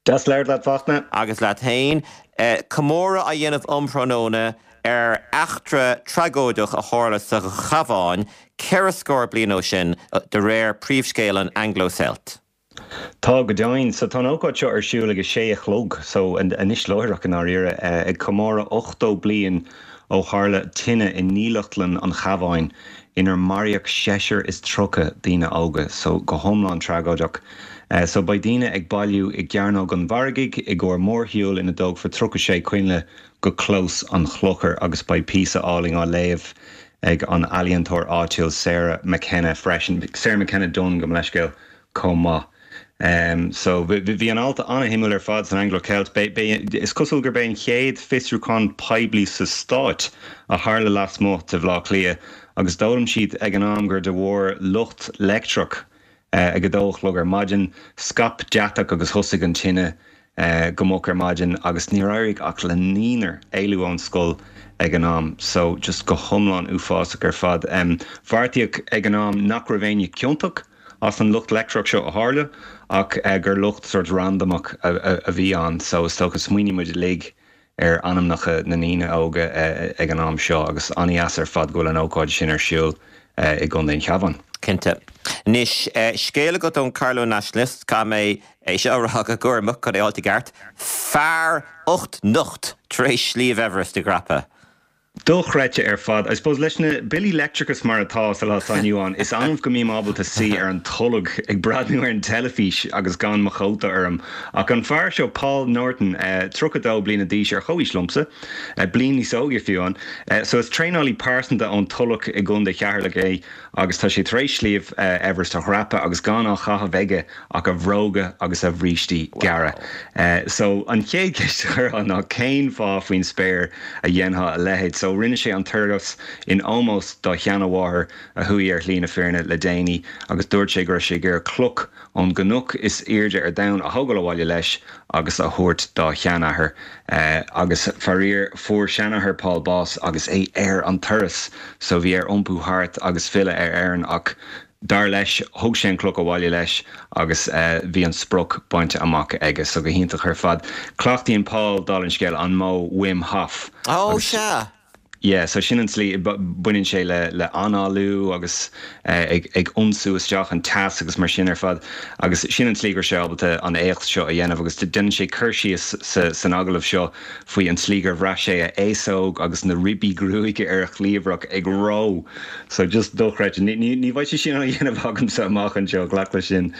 Deas labhairt leat, Fachtna. Agus leat féin. Comóradh á dhéanamh um thráthnóna ar eachtra tragóideach a tharla sa Chabhán ceithre scór bliain ó sin, de réir príomhscéal an Anglo-Celt. Tá, go deimhin. So tá an ócáid seo ar siúl ag a sé a chlog, so anois láithreach i ndáiríre, ag comóradh 80 bliain ó tharla tine i ndílleachtlann an Chabháin inar maraíodh seisear is 30 daoine óga, so go hiomlán tragóideach. So beidh daoine ag bailiú i gCearnóg an Mhargaidh i gcomhair mórshiúil ina dtógfar 36 coinnle go Clós an Chlochair agus beidh píosa álainn á léamh ag an ealaíontóir áitiúil Sarah McKenna freisin, Sarah McKenna Dunne, gabh mo leithscéal. chomh maith. So, bhí an alt an-shuimiúil ar fad san Anglo-Celt. Is cosúil gurb é an chéad fiosrúchán poiblí sa Stáit a tharla lasmuigh de Bhaile Átha Cliath agus d'fhoghlaim siad ag an am gur de bharr lucht leictreach ag a dó a chlog ar maidin, scaip deatach agus thosaigh an tine go moch ar maidin agus níor éirigh ach le naonúr éalú ón scoil ag an am. So, just go hiomlán uafásach ar fad. Bheartaíodh ag an am nach raibh éinne ciontach. as an lucht leictreach seo a tharla ach gur lucht sórt randamach a bhí ann so is dócha smaoiníonn muid uilig ar ainmneacha na ndaoine óga ag an am seo agus an-dheas ar fad go bhfuil an ócáid sin ar siúl i gContae an Chabháin. Cinnte. Anois, scéal agat ón Carlow Nationalist, caithfidh mé é seo a rá go cúramach chun é a fháilt i gceart, fear ucht nocht tar éis Sliabh Everest a dhreapadh. Dochreidte ar fad. I suppose leis na billí leictreachais mar atá sa lá atá inniu ann, is annamh go mbím ábalta suí ar an tolg ag breathnú ar an teilifís agus gan mo chóta orm. Ach an fear seo, Paul Norton, 32 bliana d'aois, ar chomhaois liomsa, bliain níos óige fiú amháin, so is traenálaí pearsanta ón Tulach i gContae Cheatharlach é agus tá sé tar éis Sliabh Everest a dhreapadh agus gan á chaitheamh aige ach a bhróga agus a bhrístí gearra. So, an chéad cheist a chuirfeá ná cén fáth faoin spéir a dhéanfá a leithéid? So, rinne sé an turas in ómós dá sheanamháthair a chuaigh ar shlí na fírinne le déanaí agus dúirt sé go raibh sé ag iarraidh cloch ón gcnoc is airde ar domhan a thógáil abhaile leis agus a thabhairt dá sheanathair. Agus faraor, fuair seanathair Paul bás agus é ar an turas so bhí air iompú thart agus filleadh ar Éirinn ach Dar leis, thug sé an cloch abhaile leis agus bhí an sprioc bainte amach aige. So go hiontach ar fad. Cleachtaíonn Paul, dála an scéil, an modh Wim Hof. Ó, sea! Yeah, so sin an tslí, baineann sé le le análú agus ag ag ionsú isteach an teas agus mar sin ar fad agus sin an tslí go raibh sé ábalta an éacht seo a dhéanamh agus déanann sé cur síos sa san agallamh seo faoi an tslí gur bhraith sé a fhéasóg agus na ribí gruaige ar a chliabhrach ag reo. So just dochreidte. Ní ní ní bheidh sé sin á dhéanamh agamsa amach anseo, glac leis sin.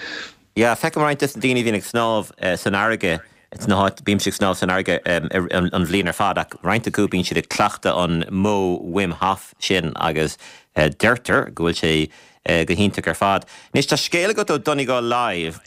Yeah, feicim roinnt des na daoine a bhíonn ag snámh san fharraige, sna háit, bímse ag snámh san fharraige an bhliain ar fad ach roinnt acu bíonn siad ag cleachtadh an modh Wim Hof sin agus deirtear go bhfuil sé go hiontach ar fad. Anois tá scéal agat ó Donegal Live.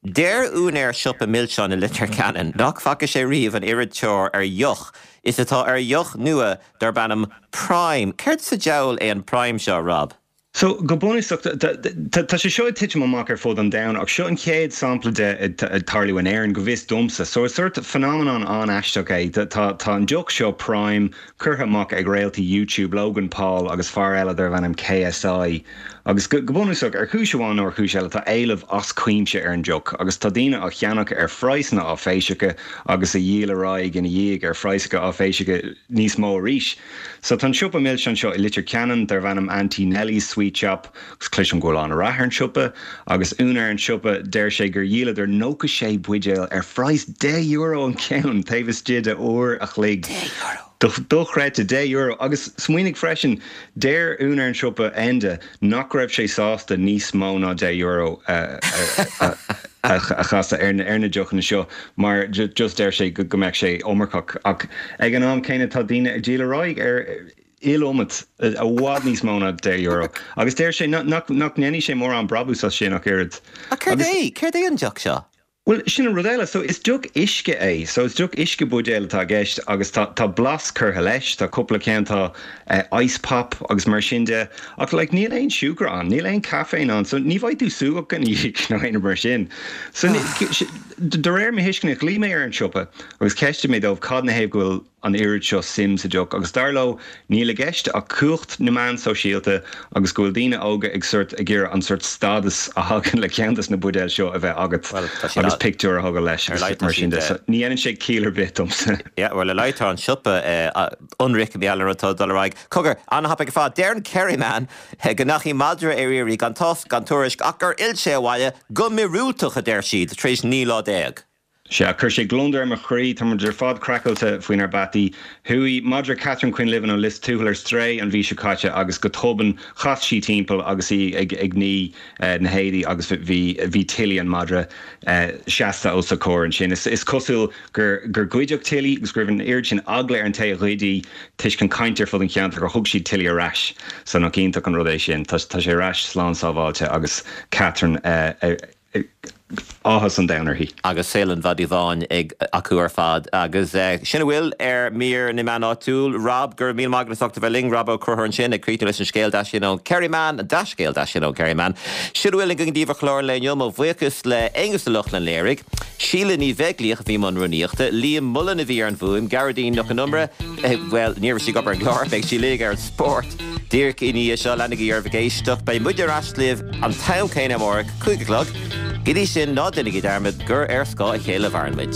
Deir úinéir siopa milseán i Leitir Ceanainn nach bhfaca sé riamh an oiread tóir ar dheoch is atá ar dheoch nua darb ainm Prime. Céard sa diabhal é an Prime seo, Rob? So, go bunúsach, tá sé seo ag titim amach ar fud an domhain ach seo an chéad sampla de ag tarlú in Éirinn, go bhfios domsa. So, is sórt phenomenon an-aisteach é. Tá tá an deoch seo, Prime, curtha amach ag réaltaí YouTube, Logan Paul agus fear eile darbh ainm KSI. Agus go bunúsach, ar chúis amháin nó ar chúis eile, tá éileamh as cuimse ar an deoch agus tá daoine á cheannach ar phraghsanna áiféiseacha agus a dhíol ar aghaidh ina dhiaidh ar phraghsanna áiféiseacha níos mó arís. So tá an siopa milseán seo i Leitir Ceanainn darbh ainm Auntie Nellie's Sweet Shop agus cloisim go bhfuil an-rath ar an siopa agus úinéir an tsiopa deir sé gur dhíoladar 96 buidéal ar phraghas €10 an ceann taobh istigh de uair a chloig. €10! Dochreidte, €10! Agus smaoinigh freisin, deir úinéir an tsiopa, Enda, nach raibh sé sásta níos mó ná €10 a chasadh ar na deochanna seo mar just deir sé go mbeadh sé iomarcach ach ag an am céanna tá daoine ag díol ar aghaidh ar iliomad, i bhfad níos mó ná €10 agus deir sé nach ndéanfaidh sé mórán brabús as sin ach oiread. Ach céard é, céard é an deoch seo? Bhuel, sin an rud eile. So, is deoch uisce é. So, is deoch uisce buidéil atá i gceist agus tá, tá blas curtha leis. Tá cúpla ceann, tá ice pop agus mar sin de. Ach like, níl aon siúcra ann, níl aon caiféin ann. So, ní bheidh tú súgach ina dhiaidh nó aon rud mar sin. So, de réir mo thuisceana, ghlaoigh mé ar an siopa agus cheistigh mé dóibh cad 'na thaobh go bhfuil, an oiread seo suim sa deoch agus dar leo níl i gceist ach cumhacht na meán sóisialta agus go bhfuil daoine óga ag sort ag iarraidh an sort stádas a thagann le ceann des na buidéil seo a bheith agat agus pictiúr a thógáil leis agus mar sin de. So ní dhéanann sé ciall ar bith domsa. Yeah, bhuel, ar a laghad tá an siopa ionraic mar gheall ar an rud atá ag dul ar aghaidh. Cogar, an-thapaidh ar fad. Deir an Kerryman go ndeachaigh madra ar iarraidh gan tásc gan tuairisc ach gur fhill sé abhaile go míorúilteach, a deir siad, tar éis 19 lá. Sea, chuir sé gliondar ar mo chroí. Tá muid ar fad craiceáilte faoinár bpeataí. Chuaigh madra Catherine Quinlivan ó Lios Tuathail ar strae an mhí seo caite agus go tobann chas sí timpeall agus í ag ag ní na héadaí agus bhí bhí Tilly an madra seasta os a comhair ansin. Is is cosúil gur gur goideadh Tilly agus go raibh an oiread sin eagla ar an té a ghoid í toisc an caint ar fud an cheantair gur thug siad Tilly ar ais. So nach iontach an rud é sin. Tá tá sé ar ais slán sábháilte agus Catherine áthas an domhain uirthi. Agus saol an mhadaidh bháin ag acu ar fad. Agus sin a bhfuil ar mír na meán áitiúil. Rob, go raibh míle maith agat as ucht a bheith linn. Rob Ó Conchúir ansin ag críochnú leis an scéal deas sin ón Kerryman, an dea-scéal deas sin ón Kerryman. Sin a bhfuil againn daoibh ar chlár an lae inniu. Mo bhuíochas le Aonghus Ó Lochlainn léirigh, Síle Ní Bheaglaoich a bhí i mbun rúnaíochta, Liam Mullen a bhí ar an bhfuaim, Gearóidín Nic Con Iomaire, bhuel, ní raibh sí ag obair ar an gclár, beidh sí linn ar an spórt díreach i ndiaidh seo. Leanaigí oraibh ag éisteacht. Beidh muid ar ais libh an t-am céanna amárach, 5 a chlog. Go dtí sin, ná déanaigí dearmad gur ar scáth a chéile a mhaireann muid.